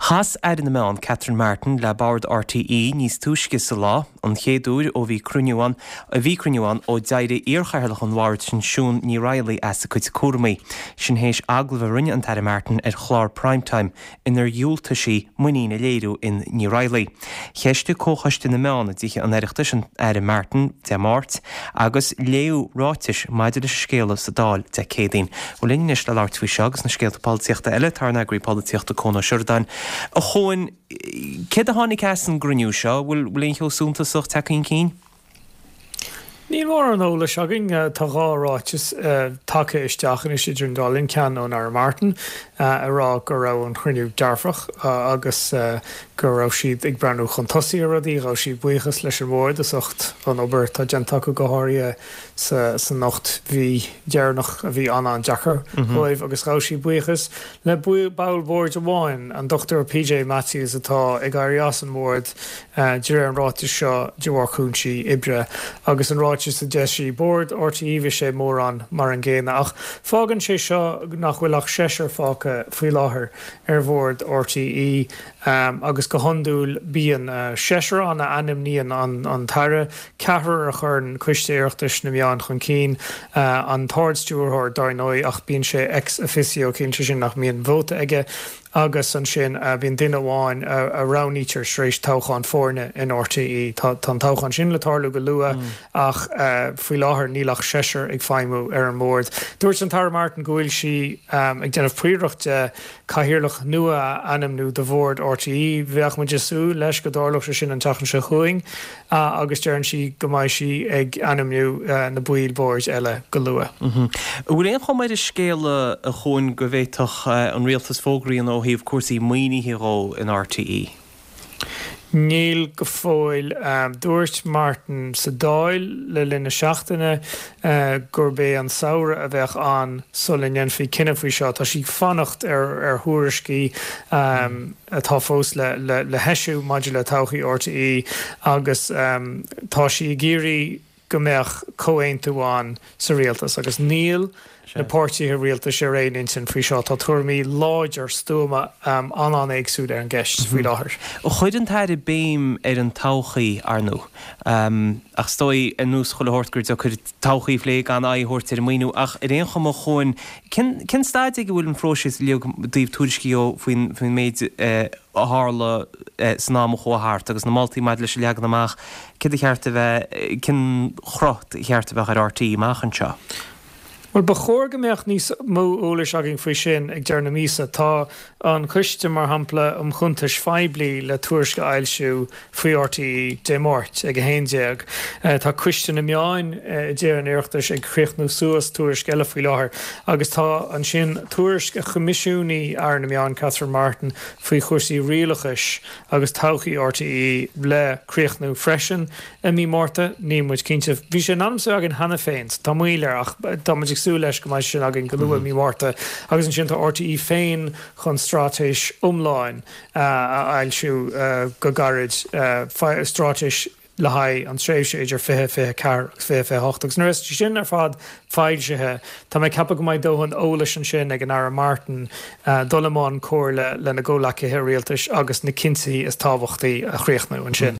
Chas Aire na Meán Catherine Martin le Bord RTÉ níos túisce sa lá, an chéad uair ó bhí cruinniú ann bhí cruinniú ann ó d'éirigh iarchathaoirleach an bhoird sin Siún Ní Raghallaigh as a cuid cúramaí. Sin théis agallamh a rinne an tAire Martin ar chlár Prime Time inar dhiúltaigh sí muinín a léiriú in Ní Raghallaigh. Cheistigh Comhchoiste na Meán i dTithe an Oireachtais an Aire Martin Dé Máirt agus léadh ráitis maidir leis an scéala sa Dáil Dé Céadaoin. Bhuel linn anois le labhairt faoi seo agus na scéalta polaitíochta eile tá ár n-eagraí polaitíochta Cuan Ó Seireadáin. A Chuain, céard a tháinig as an gcruinniú seo? Bhfuil aon cheo suntasach tagtha chun cinn? Níl mórán eolais againn. Tá dhá ráiteas tagtha isteach anois idir an dá linn, ceann ón Aire Martin ag rá go raibh an chruinniú dearfach agus go raibh siad ag breathnú chun tosaigh ar rudaí. Ghabh sí buíochas leis an bhord as ucht an obair atá déanta acu, go háirithe san 8 mhí dheireanach a bhí an-an-deacair dóibh agus ghabh sí buíochas le ball boird amháin, an Dr PJ Matthews atá ag éirí as an mbord de réir an ráitis seo, de bharr cúinsí oibre. Agus an ráiteas a d'eisigh Bord RTÉ, bhí sé mórán mar an gcéanna. Ach fágann sé seo nach bhfuil ach seisear fágtha faoi láthair ar Bhord RTÉ agus go hiondúil bíonn seisear ann a ainmníonn an tAire, ceathrar a chuireann Coiste Oireachtais na Meán chun cinn, an tArd-Stiúrthóir dar ndóigh ach bíonn sé ex officio, ciallaíonn sé sin nach mbíonn vóta aige. Agus ansin bíonn duine amháin a roghnaítear tar éis toghchán foirne in RTÉ. Tá an toghchán sin le tarlú go luath ach faoi láthair níl ach seisear ag feidhmiú ar an mbord. Dúirt an tAire Martin go bhfuil sí ag déanamh príorach de cathaoirleach nua a ainmniú do bhord RTÉ. Bheadh muid ag súil leis go dtarlódh sé sin an tseachtain seo chugainn. agus deireann sí go mbeidh sí ag ainmniú na baill boird eile go luath. An bhfuil aon chuma ar an scéal, a Chuain, go bhféadfadh an rialtas fógra a dhéanamh ó thaobh cúrsaí maoinithe dhó in RTÉ? Níl go fóill. Dúirt Martin sa Dáil le linn na seachtaine gurb é an samhradh a bheadh ann sula ndéanfaí cinneadh faoi seo. Tá sí ag fanacht ar thuairiscí. atá fós le heisiú maidir le todhchaí RTÉ agus tá sí ag iarraidh go mbeadh comhaontú ann sa rialtas agus níl na páirtithe rialtais ar aon intinn faoi seo. Tá tuairimí láidir, stuama, an-an-éagsúil ar an gceist faoi láthair. Chuir an tAire béim ar an todhchaí, ar ndóigh, ach is dóigh, ar nós chuile shórt, gur deacair todhchaí a phlé gan aghaidh a thabhairt ar an maoiniú ach ar aon chuma, a Chuain, Cén cén staid ag a bhfuil an phróiseas uilig i dtaobh tuairiscí dhó faoin faoin méid a tharla san am a chuaigh thart agus na moltaí maidir leis a leagan amach céard a cheart a bheith cén chruth a cheart a bheadh ar RTÉ amach anseo? Bhuel, ba chóir go mbeadh níos mó eolais againn faoi sin ag deireadh na míosa. Tá an Coiste, mar shampla, um Chuntais Phoiblí le tuairisc a fhoilsiú faoi RTÉ Dé Máirt ag 11. Tá Coiste na Meán i dTithe an Oireachtais ag críochnú suas tuairisc eile faoi láthair agus tá ansin tuairisc a choimisiúnaigh Aire na Meán Catherine Martin faoi chúrsaí rialachais agus todhchaí RTÉ le críochnú freisin i mí Márta. Níl muid cinnte. Bhí sé in ainm is a bheith againn cheana féin so tá moill air ach tá muid ag súil leis go mbeidh sé sin againn go luath i mí Márta agus ansin tá RTÉ féin chun straitéis iomlán a fhoilsiú go gairid, straitéis le haghaidh an tréimhse idir 2024 agus 2028. Agus nuair a bheas sé sin ar fad foilsithe, tá mé ag ceapadh go mbeidh dóthain eolais ansin ag an Aire Martin dul i mbun comhairle lena gcomhleacaithe rialtais agus na cinntí is tábhachtaí a chríochnú ansin.